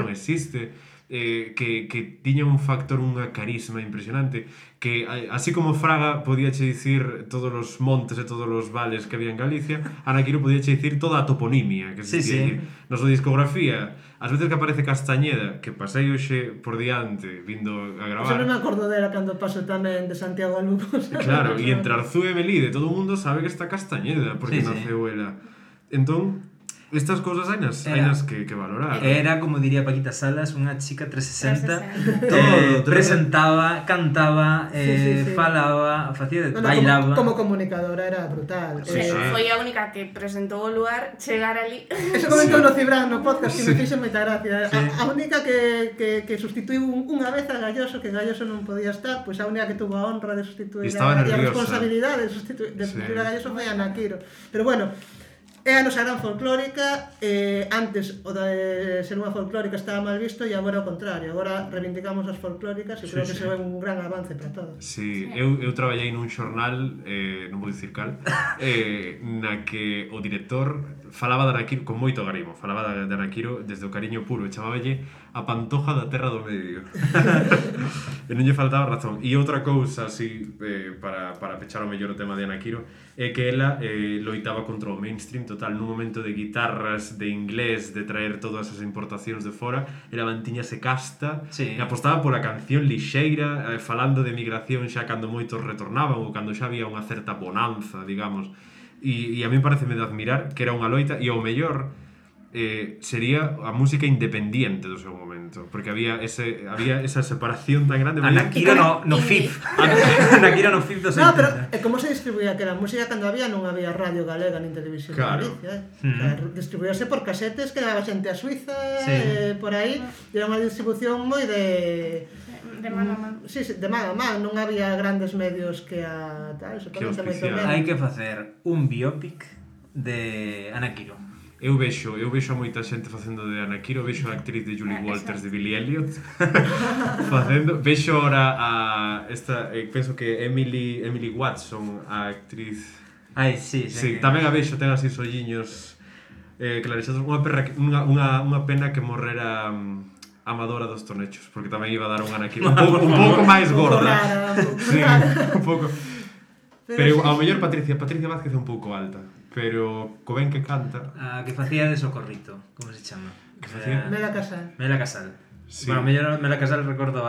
existe, que tiña un factor, unha carisma impresionante, que así como Fraga podíache dicir todos os montes e todos os vales que había en Galicia, Anakiro podíache dicir toda a toponimia que Sí, existía. sí. Na súa discografía, as veces que aparece Castañeda, que pasei hoxe por diante vindo a Eso non me gravar, acordo dela cando paso tamén de Santiago a Lugo. claro, e entre Arzú e Melide todo o mundo sabe que está Castañeda porque Sí, sí. naceu ela. Entón, estas cousas hainas que valorar. Era, como diría Paquita Salas, unha chica 360. 360. Todo, Presentaba, cantaba, Sí, sí. falaba, facía, No, bailaba. como comunicadora era brutal. Sí, sí. Foi a única que presentou o lugar, chegar ali. Eso comentou no Cibran no podcast que me fixo moita gracia. Sí. A única que sustituiu unha vez a Galloso, que Galloso non podía estar, pois a única que tuvo a honra de sustituir Estaba a nerviosa. responsabilidade de sustituir a Galloso foi a Anakiro. Pero bueno, é a nosa gran folclórica, antes o de ser unha folclórica estaba mal visto e agora ao contrario, agora reivindicamos as folclóricas e creo que sí. iso é un gran avance para todos. Sí, eu traballei nun xornal, non vou dicir cal, na que o director falaba de Anakiro con moito garimo, falaba de Anakiro desde o cariño puro, e chamáballe a pantoja da terra do medio. E non lle faltaba razón. E outra cousa, así, para pechar o mellor o tema de Anakiro, é que ela loitaba contra o mainstream total, nun momento de guitarras, de inglés, de traer todas as importacións de fora, ela mantiñase casta, Sí. e apostaba pola canción lixeira, falando de migración xa cando moitos retornaban ou cando xa había unha certa bonanza, digamos. E a mí pareceme de admirar que era unha loita, e ao mellor sería a música independiente do seu momento, porque había esa separación tan grande. Anakiro no FIF. Anakiro no FIF dos 80. No, pero como se distribuía aquela música cando non había radio galega nin televisión de Galicia, distribuíase por casetes que daba xente a Suiza, por aí, e era unha distribución moi de mano a mano. Sí, de mano a mano, non había grandes medios que a tal, supongo moito menos. Hai que facer un biopic de Anakiro. Eu vexo a moita xente facendo de Anakiro, vexo a actriz de Julie Walters de Billy Elliot facendo, vexo ahora a esta, penso que Emily Watson, a actriz. Ai, sí, tamén a vexo, ten así solliños clarexados, unha pena que morrera Amadora dos Tornechos, porque tamén iba a dar un Anakiro un pouco máis gorda. Sí, un pouco. Pero ao mellor Patricia Vázquez é un pouco alta, pero co ben que canta. A que facía de Socorrito, como se chama? Que facía? Mela Casal. Sí. Bueno, mellor Mela Casal recordo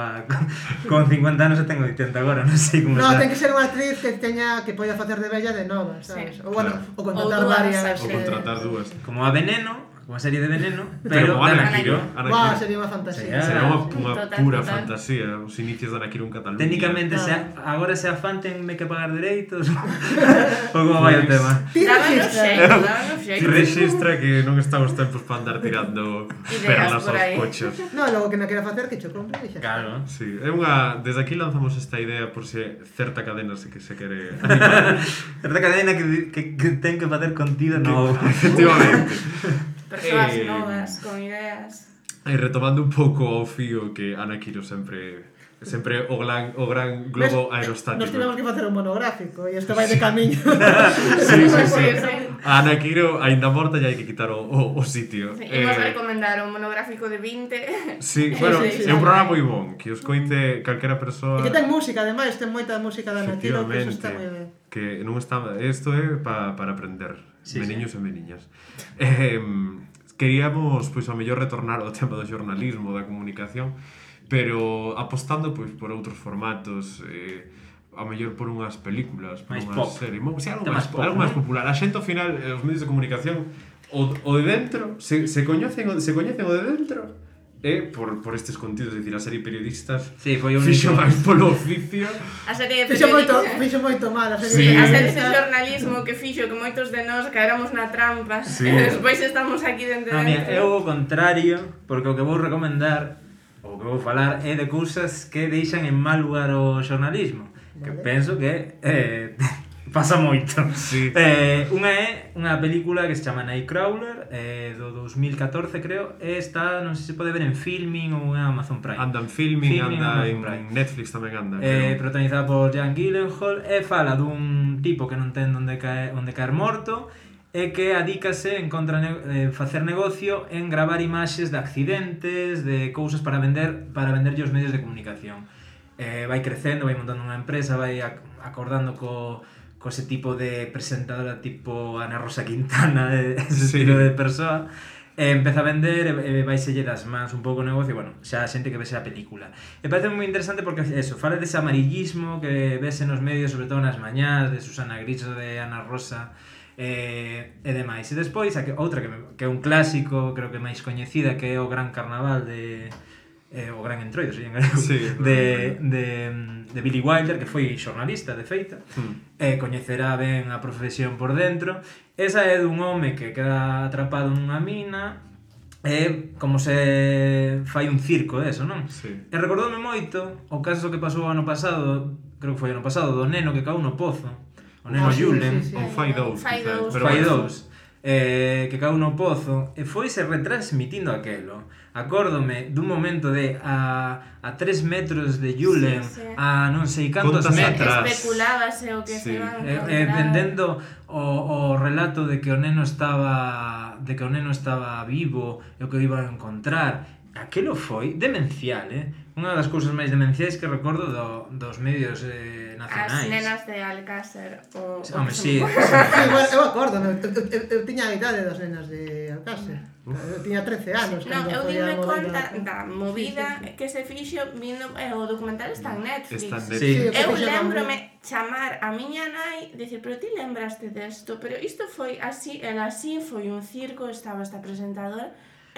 con 50 anos e tengo 80 agora, non sei como está. No, ten que ser unha actriz que poida facer de bella de nova, sabes? Ou bueno, ou contratar varias. Ou contratar dúas. Como a Veneno, unha serie de Veneno, pero de Anakiro. Sería unha fantasía. Sería unha pura fantasía, os inicios de Anakiro en Cataluña. Técnicamente, agora se afán tenme que pagar dereitos ou como vai o tema? Rexistra que non está os tempos para andar tirando perlas aos cochos. No, logo que non quera facer que cho compre e xa. Claro. Sí, é unha... Desde aquí lanzamos esta idea por se certa cadena se quere animar. Certa cadena que ten que facer contido novo. Efectivamente. Persoas novas, con ideas. E retomando un pouco ao fío que Anakiro sempre o gran globo aerostático. Nos tivemos que facer un monográfico e isto vai de camiño. Sí. A Anakiro aínda morta e hai que quitar o sitio. Imos recomendar un monográfico de 20. Sí, bueno, é un programa moi bon, que os coite calquera persoa. E que ten música, ademais, ten moita música de Anakiro, que eso está moi ben. Que non está... Isto é para aprender, meniños e meniñas. Queríamos, pois, ao mellor retornar ao tema do xornalismo, da comunicación, pero apostando, pois, por outros formatos, ao mellor por unhas películas, por unhas series, algo máis popular. A xente, ao final, os medios de comunicación, o de dentro, se coñecen o de dentro, por estes contidos, é dicir, a serie Periodistas fixo máis polo oficio. A serie de periodistas fixo moito mal, a serie de xornalismo que fixo que moitos de nós caéramos na trampa e despois estamos aquí dentro. Eu o contrario, porque o que vou recomendar, o que vou falar é de cousas que deixan en mal lugar o xornalismo, que penso que pasa moito. Sí. Unha é unha película que se chama Nightcrawler, do 2014 creo, e está, non sei se pode ver en Filmin ou en Amazon Prime. Anda en Filmin, anda en Netflix tamén anda. Protagonizada por Jake Gyllenhaal, e fala dun tipo que non ten onde caer morto, e que adícase en contra facer negocio en gravar imaxes de accidentes, de cousas para venderlle aos medios de comunicación. Vai crecendo, vai montando unha empresa, vai acordando co ese tipo de presentadora tipo Ana Rosa Quintana, ese estilo de persoa, empeza a vender e vaiselle das mans un pouco o negocio, bueno, xa a xente que vese a película. E parece moi interesante porque eso, fala dese amarillismo que vese nos medios, sobre todo nas mañás, de Susana Griso, de Ana Rosa, e demais. E despois, outra que é un clásico, creo que máis coñecida, que é o Gran Carnaval o Gran Entroido, en galego, de Billy Wilder, que foi xornalista de feita, coñecerá ben a profesión por dentro. Esa é dun home que queda atrapado nunha mina, e como se fai un circo deso, non? Sí. E recordoume moito o caso que pasou ano pasado, creo que foi ano pasado, do neno que caeu no pozo, o neno Julen, ou Fai 2, que caeu no pozo, e foise retransmitindo aquelo. Acórdome dun momento de a 3 metros de Julen, a non sei cantos metros, especulábase o que se iban a encontrar, vendendo o relato de que o neno estaba vivo e o que o iban a encontrar. Aquelo foi demencial, Unha das cousas máis demenciais que recordo dos medios nacionais. As nenas de Alcácer o Home, sí. Sí, bueno, eu acordo, eu tiña a idade das nenas de Alcácer. Eu tiña 13 anos. Non, eu foi a dime movida. conta da movida que se fixo vindo, o documental está en Netflix. Está en Sí. Netflix. Eu lembrome chamar a miña nai e dicir, pero ti lembraste desto? Pero isto foi así, el así foi un circo, estaba esta presentadora.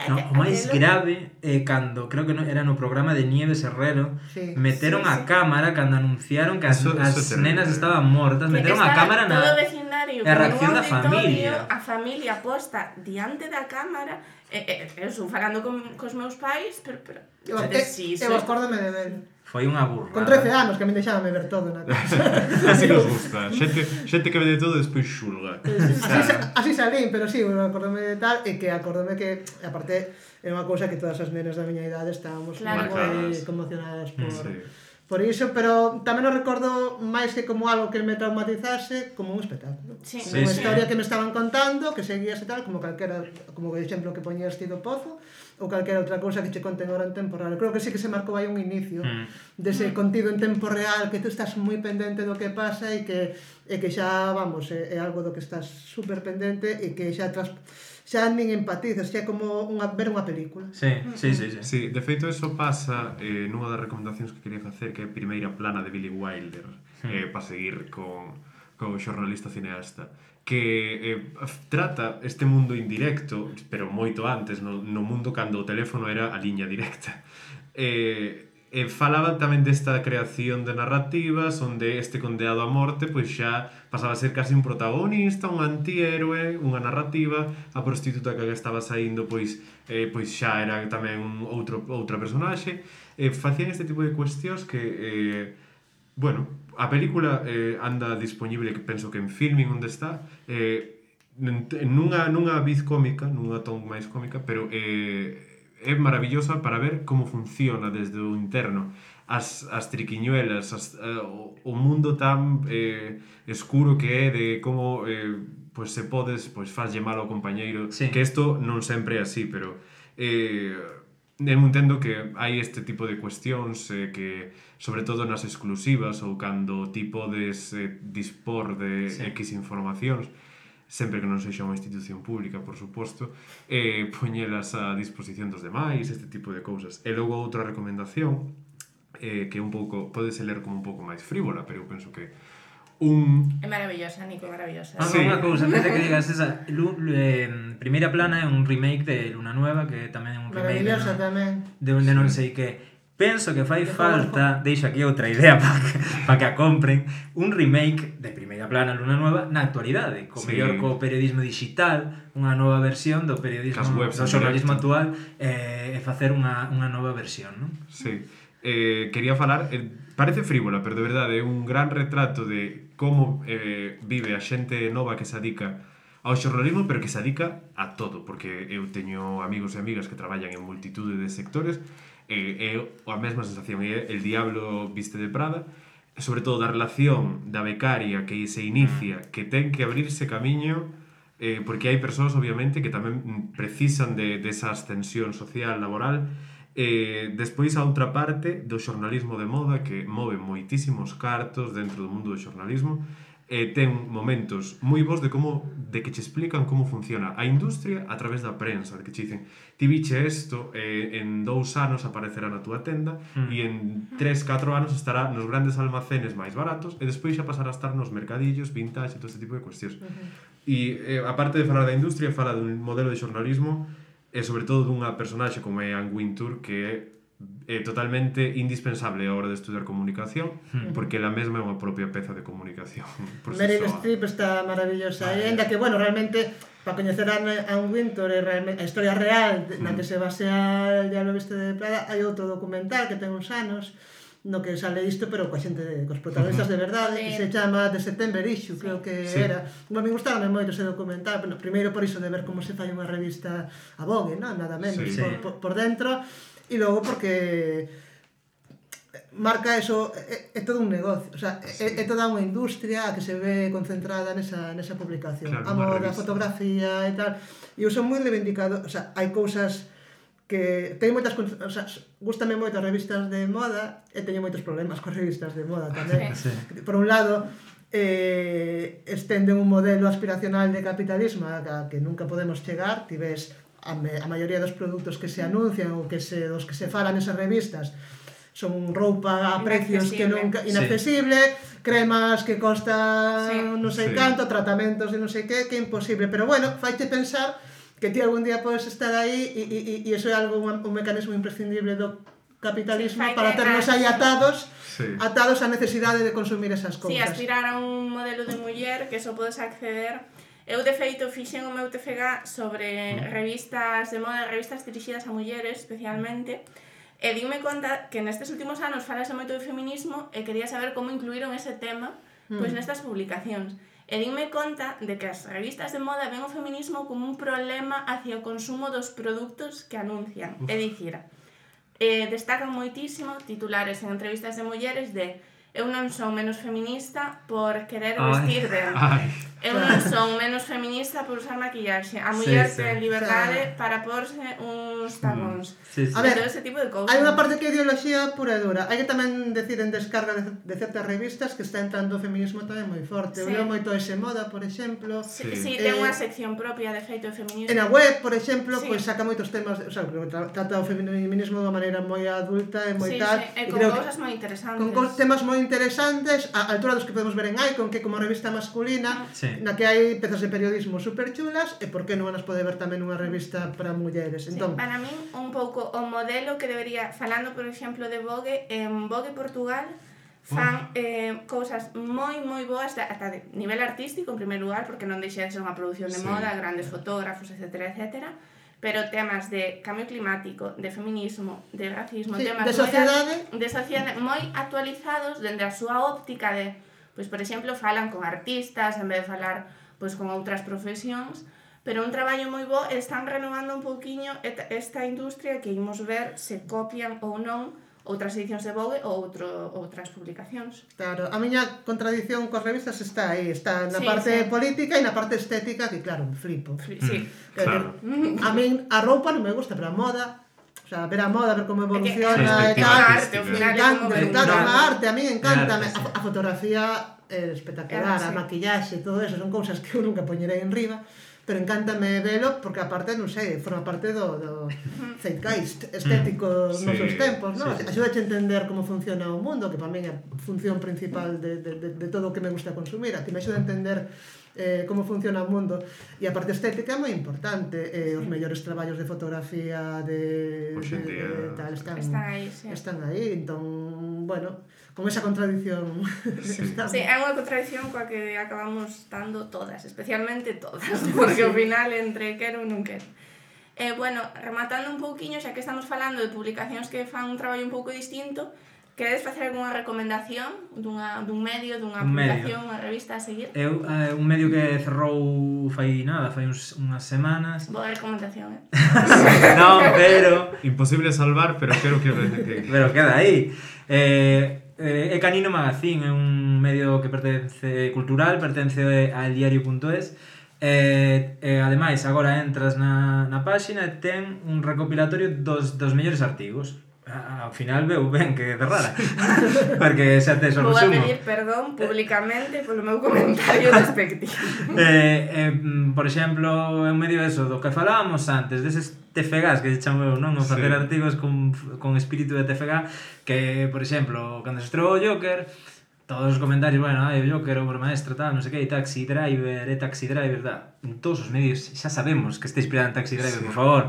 No, o máis grave é cando, creo que era no programa de Nieves Herrero, Sí. meteron a cámara cando anunciaron que as Eso é terrible. nenas estaban mortas, meteron a cámara todo o na... vecindario a con reacción un da familia. auditorio, a familia posta diante da cámara, eu estou falando cos meus pais, pero Eu acórdome de ver. Foi unha burra. Con 13 anos, que a mí deixábame ver todo na casa. Así nos gusta. Xente que ve de todo e despois xulga. Así salín, pero sí, acórdome de tal, e que acórdome que, aparte, era unha cousa que todas as nenas da miña idade estábamos Claro. moi conmocionadas Sí. por iso, pero tamén o recordo máis que como algo que me traumatizase, como un espectáculo. Sí. Sí, Unha sí. historia que me estaban contando, que seguías e tal, como calquera, como o exemplo que poñías ti do Pozo, ou calquera outra cousa que che conten agora en tempo real. Creo que sí que se marcou aí un inicio dese contido en tempo real, que tú estás moi pendente do que pasa e que xa, vamos, é algo do que estás super pendente e que xa nin empatizas, xa é como ver unha película. Sí. Sí, de feito eso pasa nunha das recomendacións que quería facer, que é a primeira plana de Billy Wilder, para seguir con o xornalista cineasta, que trata este mundo indirecto, pero moito antes, no mundo cando o teléfono era a liña directa. Falaba tamén desta creación de narrativas onde este condeado a morte pois xa pasaba a ser casi un protagonista, un antihéroe, unha narrativa, a prostituta que estaba saindo pois xa era tamén outra personaxe. Facían este tipo de cuestións que bueno, a película anda disponible, que penso que en Filmin onde está, nunha viz cómica, nunha ton máis cómica, pero é maravillosa para ver como funciona desde o interno as triquiñuelas, o mundo tan escuro que é de como pois se podes faslle mal ao compañeiro, sí. Que isto non sempre é así, pero eu entendo que hai este tipo de cuestións que, sobre todo nas exclusivas ou cando ti podes dispor de X informacións, sempre que non sexa unha institución pública, por suposto, poñelas a disposición dos demais, este tipo de cousas. E logo outra recomendación, que un pouco, podese ler como un pouco máis frívola, pero eu penso que É maravillosa, Nico, maravillosa. Sí. Unha cousa, antes de que digas esa, Primeira plana é un remake de Luna Nueva, que tamén é un remake Maravillosa tamén. de non sei que. Penso que fai falta, deixo aquí outra idea para que a compren, un remake de Primeira plana Luna Nueva na actualidade, co mellor co periodismo digital, unha nova versión do periodismo, do xornalismo actual, e facer unha nova versión, non? Sí. Quería falar, parece frívola, pero de verdade é un gran retrato de como vive a xente nova que se dedica ao xornalismo, pero que se dedica a todo, porque eu teño amigos e amigas que traballan en multitude de sectores, é a mesma sensación, é el diablo viste de Prada, sobre todo da relación da becaria que se inicia, que ten que abrirse camiño, porque hai persoas, obviamente, que tamén precisan de esa ascensión social, laboral. Despois a outra parte do xornalismo de moda, que move moitísimos cartos dentro do mundo do xornalismo, ten momentos moi bons de que che explican como funciona a industria a través da prensa, de que che dicen, ti biche isto, en 2 anos aparecerá na túa tenda e en 3-4 anos estará nos grandes almacenes máis baratos e despois xa pasará a estar nos mercadillos, vintage e todo este tipo de cuestións. E aparte de falar da industria, fala dun modelo de xornalismo e sobre todo dunha personaxe como é Anne Wintour, que é totalmente indispensable a hora de estudiar comunicación, porque ela mesma é unha propia peza de comunicación. Meryl Streep está maravillosa, e ainda que, bueno, realmente, para coñecer a Anne Wintour e a historia real na que se basea El diablo viste de Prada, hai outro documental que ten uns anos no que sale isto, pero coa xente, cos protagonistas de verdade, que se chama The September Issue, creo que era. Bueno, me gustaba moito ese documental, bueno, primeiro por iso de ver como se fai unha revista a Vogue, non? Nada menos, por dentro, e logo porque marca eso, é todo un negocio, o sea, é toda unha industria que se ve concentrada nesa publicación, a moda, a fotografía e tal, e eu son moi reivindicado, o sea, hai cousas que teño moitas, o sea, gústame moito as revistas de moda e teño moitos problemas coas revistas de moda tamén. Sí. Por un lado, estenden un modelo aspiracional de capitalismo a que nunca podemos chegar. Ti ves a maioría dos produtos que se anuncian ou dos que se falan nesas revistas son roupa a precios que nunca inaccesible, cremas que costan non sei canto, tratamentos de non sei que é imposible, pero bueno, faiche pensar que ti algún día podes estar aí e iso é algo, un mecanismo imprescindible do capitalismo para ternos aí atados á necesidade de consumir esas cousas. aspirar a un modelo de muller que só podes acceder. Eu, de feito, fixen o meu TFG sobre revistas de moda, revistas dirixidas a mulleres, especialmente, e dime conta que nestes últimos anos falase moito de feminismo e quería saber como incluíron ese tema pois nestas publicacións. E dime conta de que as revistas de moda ven o feminismo como un problema hacia o consumo dos produtos que anuncian. É dicir, destacan moitísimo titulares en entrevistas de mulleres de eu non son menos feminista por querer vestir ben. Eu non son menos feminista por usar maquillaxe. A muller ten liberdade para porse uns tacóns. A ver, todo ese tipo de cousas. hai unha parte que é ideoloxía pura e dura. Hai que tamén decir en descarga de certas revistas que está entrando o feminismo tamén moi forte. Eu leo moito ese Moda, por exemplo. Sí, ten unha sección propia de feito de feminismo. En a web, por exemplo, pois saca moitos temas, o sea, trata o feminismo de unha maneira moi adulta e moi tal. E con cousas moi interesantes. Con temas moi interesantes, a altura dos que podemos ver en Icon, que como revista masculina, na que hai pezas de periodismo super chulas, e por que non as pode ver tamén unha revista para mulleres. Entón, para min, un pouco o modelo que debería, falando, por exemplo, de Vogue, en Vogue Portugal, fan cousas moi boas ata de nivel artístico, en primeiro lugar, porque non deixa de ser unha produción de moda, grandes fotógrafos, etcétera, pero temas de cambio climático, de feminismo, de racismo, temas de sociedade moi actualizados dende a súa óptica de, pois, por exemplo, falan con artistas en vez de falar pois con outras profesións, pero un traballo moi bo, están renovando un pouquiño esta industria que imos ver se copian ou non outras edicións de Vogue ou outras publicacións. Claro, a miña contradición coas revistas está aí, está na parte política e na parte estética, que claro, me flipo. Sí, claro. A min a roupa non me gusta, pero a moda, o sea, ver a moda, ver como evoluciona e tal, me encanta, a arte, a mí encanta, a fotografía é espectacular, a maquillaxe, todo eso, son cousas que eu nunca poñerei en riba, pero encántame velo porque aparte, non sei, forma parte do zeitgeist estético nos nosos tempos, non? Axuda a entender como funciona o mundo, que para min é a función principal de todo o que me gusta consumir, a que me axuda a entender como funciona o mundo, e a parte estética é moi importante, os mellores traballos de fotografía de tal están aí, entón, bueno, con esa contradición estamos. Sí, é unha contradición coa que acabamos estando todas, especialmente todas, porque ao final entre quero ou non quero. Bueno, rematando un pouquiño, xa que estamos falando de publicacións que fan un traballo un pouco distinto, queredes facer algunha recomendación dun medio, dunha publicación, unha revista a seguir? Un medio que cerrou fai unhas semanas. Boa recomendación, Non, pero... Imposible salvar, pero creo que... Pero queda aí. É Canino Magazine, é un medio que pertence cultural, pertence a eldiario.es. Ademais, agora entras na páxina e ten un recopilatorio dos mellores artigos. Ao final veu ben que cerrara, porque xa tes o resumo. Vou a pedir perdón públicamente polo meu comentario despectivo. Por exemplo, é un medio eso do que falábamos antes, deses TFGs que se chamo eu, non? O facer artigos con espírito de TFG, que, por exemplo, cando se estreou o Joker, todos os comentarios, bueno, o Joker, obra maestra, tal, non sei que, Taxi Driver, tal. En todos os medios xa sabemos que está inspirado en Taxi Driver, por favor.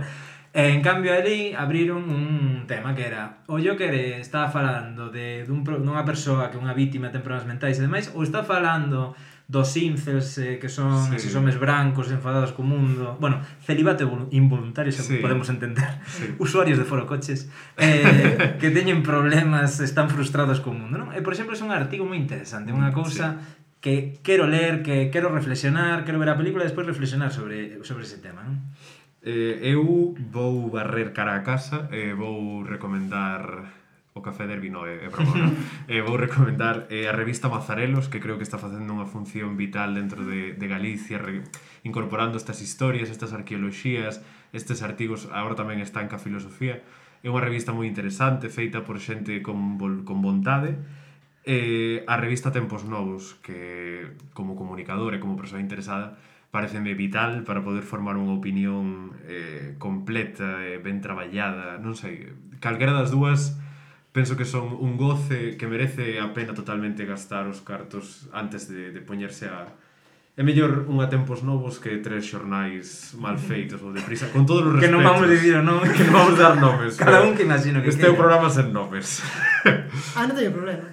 En cambio, ali abriron un tema que era o Joker estaba falando dunha persoa que é unha vítima ten problemas mentais e demais, ou está falando dos incels que son esos homes brancos enfadados co mundo, bueno, celibato involuntario, xa podemos entender, usuarios de forocoches que teñen problemas, están frustrados co mundo, non? E, por exemplo, é un artigo moi interesante, unha cousa que quero ler, que quero reflexionar, quero ver a película e despois reflexionar sobre ese tema, non? Eu vou barrer cara a casa e vou recomendar o Café Derby no é broma, non? Vou recomendar a revista Mazarelos, que creo que está facendo unha función vital dentro de Galicia, incorporando estas historias, estas arqueoloxías, estes artigos, agora tamén está en Ca Filosofía. É unha revista moi interesante, feita por xente con vontade. A revista Tempos Novos, que como comunicador e como persoa interesada, pareceme vital para poder formar unha opinión completa e ben traballada, non sei, calquera das dúas penso que son un goce que merece a pena totalmente gastar os cartos antes de poñerse a... É mellor unha Tempos Novos que 3 xornais mal feitos ou deprisa, con todos os respetos. Que non vamos dicir o nome. Que non vamos dar nomes. Cada un que imagino que este é un programa sen nomes. Non teño problema.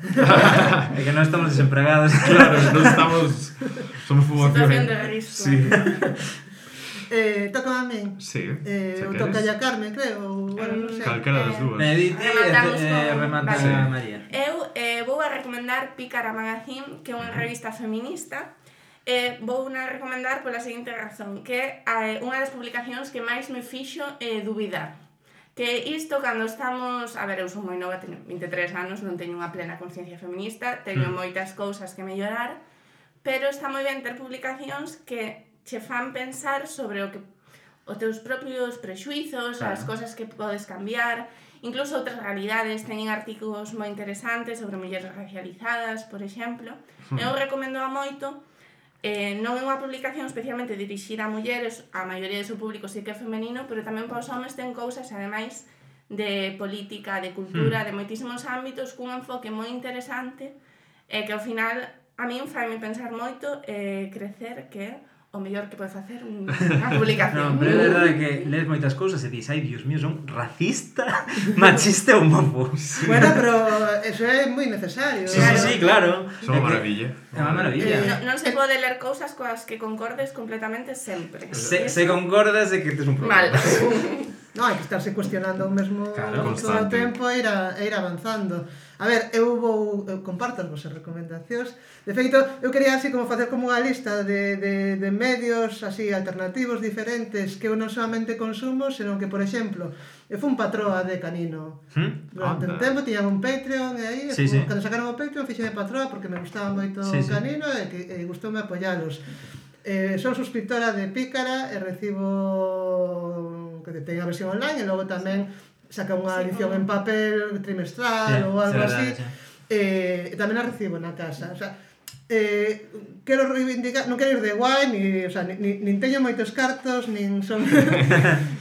É que non estamos desempregados. Claro, non estamos... Somos poboación. Situación de risco. Sí. Toca a min. Sí, o toca a Carmen, creo. Bueno, non sei. Calquera das dúas. Mediti e remata Vale. María. Eu vou a recomendar Pícara Magazine, que é unha revista feminista. Vou a recomendar pola seguinte razón, que é unha das publicacións que máis me fixo dubidar. Que isto, cando estamos... A ver, eu son moi nova, teño 23 anos, non teño unha plena conciencia feminista, teño moitas cousas que mellorar, pero está moi ben ter publicacións que che fan pensar sobre os teus propios prexuizos, as cousas que podes cambiar, incluso outras realidades. Teñen artigos moi interesantes sobre mulleres racializadas, por exemplo. Eu recomendo a moito. Non é unha publicación especialmente dirixida a mulleres, a maioría do seu público sí que é femenino, pero tamén para os homes ten cousas, ademais, de política, de cultura, de moitísimos ámbitos, cun enfoque moi interesante, que ao final a min faime pensar moito crecer que o mellor que pode facer unha publicación. Non, pero é verdade que lees moitas cousas e dis, ai, Dios mío, son racista, machista e homófobo. Bueno, pero eso é moi necesario. Sí, claro. Son unha maravilla. É unha maravilla. Non se pode ler cousas coas que concordes completamente sempre. Se concordas de que tes un problema. Mal. Non, hai que estarse cuestionando o mesmo Claro, todo o tempo e ir avanzando. A ver, eu comparto as vosas recomendacións. De feito, eu quería así como facer como unha lista de medios así alternativos diferentes que eu non solamente consumo, senón que, por exemplo, eu fui un patroa de Canino. Durante un tempo tiñan un Patreon e aí, cando sacaron o Patreon, fixeme patroa porque me gustaba moito Canino e gustoume apoialos. Son suscriptora de Pícara e recibo que teño a versión online e logo tamén saca unha edición en papel trimestral ou algo así. E tamén a recibo na casa. O sea, quero reivindicar, non quero ir de guai, nin teño moitos cartos, nin son...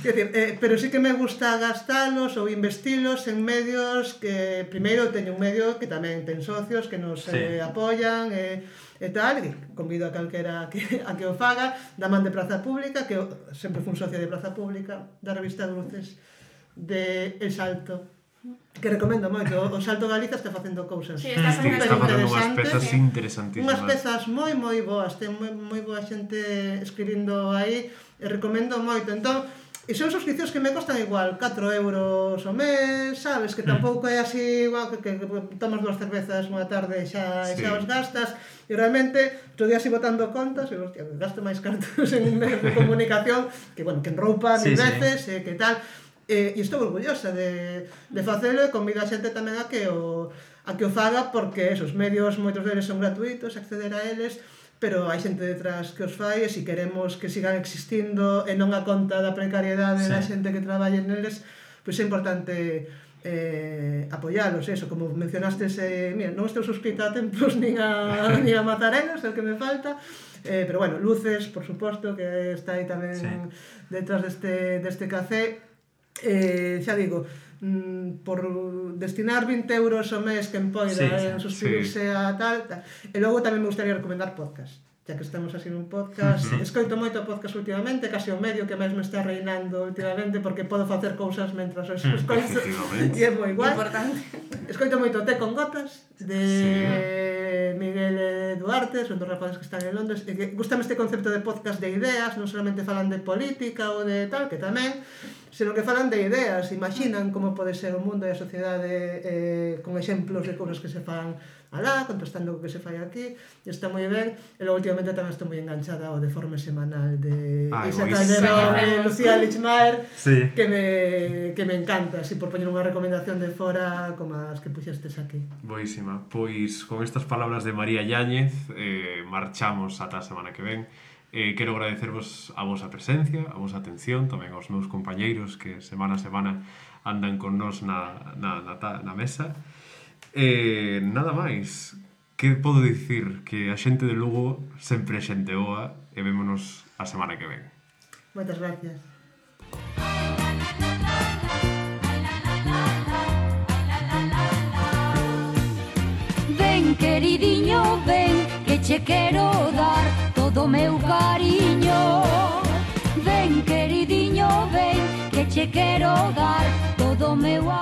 Quer decir, pero sí que me gusta gastalos ou investilos en medios que... Primeiro, teño un medio que tamén ten socios que nos apoian e tal, que convido a calquera a que o faga, da man de Praza Pública, que eu sempre fui un socio de Praza Pública, da revista de Luces de El Salto, que recomendo moito. O Salto Galiza está facendo cousas está facendo unhas pezas interesantísimas. Unhas pezas moi boas, ten moi boa xente escribindo aí, e recomendo moito. Entón, e son suscripcións que me costan igual 4 euros o mes, sabes, que tampouco é así igual que tomas 2 cervezas unha tarde e xa os gastas. E realmente, outro día así botando contas, e hostia, gasto máis cartos en un medio de comunicación que, bueno, que en roupa mil veces, que tal. E estou orgullosa de facelo e convido a xente tamén a que o faga, porque esos medios, moitos deles son gratuitos, acceder a eles, pero hai xente detrás que os fai, e se queremos que sigan existindo e non a conta da precariedade da xente que traballe neles, pois é importante apoialos, eso, como mencionastes, mira, non estou suscrita a Tempos nin a Mazarelos, é o que me falta, pero bueno, Luces, por suposto, que está aí tamén detrás deste café. Xa digo, por destinar 20 euros ao mes que empoida en suscribirse a tal, e logo tamén me gustaría recomendar podcast, xa que estamos así nun podcast. Escoito moito podcast últimamente, casi o medio que máis me está reinando últimamente, porque podo facer cousas mentras os escoito e é moi guai. Escoito moito Té con Gotas de Miguel Duarte, son dos rapazes que están en Londres, e que gustame este concepto de podcast de ideas, non solamente falan de política ou de tal, que tamén. senón que falan de ideas, imaginan como pode ser o mundo e a sociedade con exemplos de cousas que se fan alá, contrastando co que se fai aquí, e está moi ben. E logo últimamente tamén estou moi enganchada ao Deforme Semanal de Isa Calderón e Lucía Lichmaer, que me encanta, así por poñer unha recomendación de fora como as que puxestes aquí. Boísima. Pois con estas palabras de María Yáñez marchamos ata a semana que ven. Quero agradecervos a vosa presencia, a vosa atención, tamén aos meus compañeiros que semana a semana andan con nós na mesa. Nada máis. Que podo dicir? Que a xente de Lugo sempre é xente boa e vémonos a semana que ven. Moitas gracias. Ven, queridiño, ven, que che quero dar todo o meu cariño. Ven, queridiño, ven, que che quero dar todo o meu amor.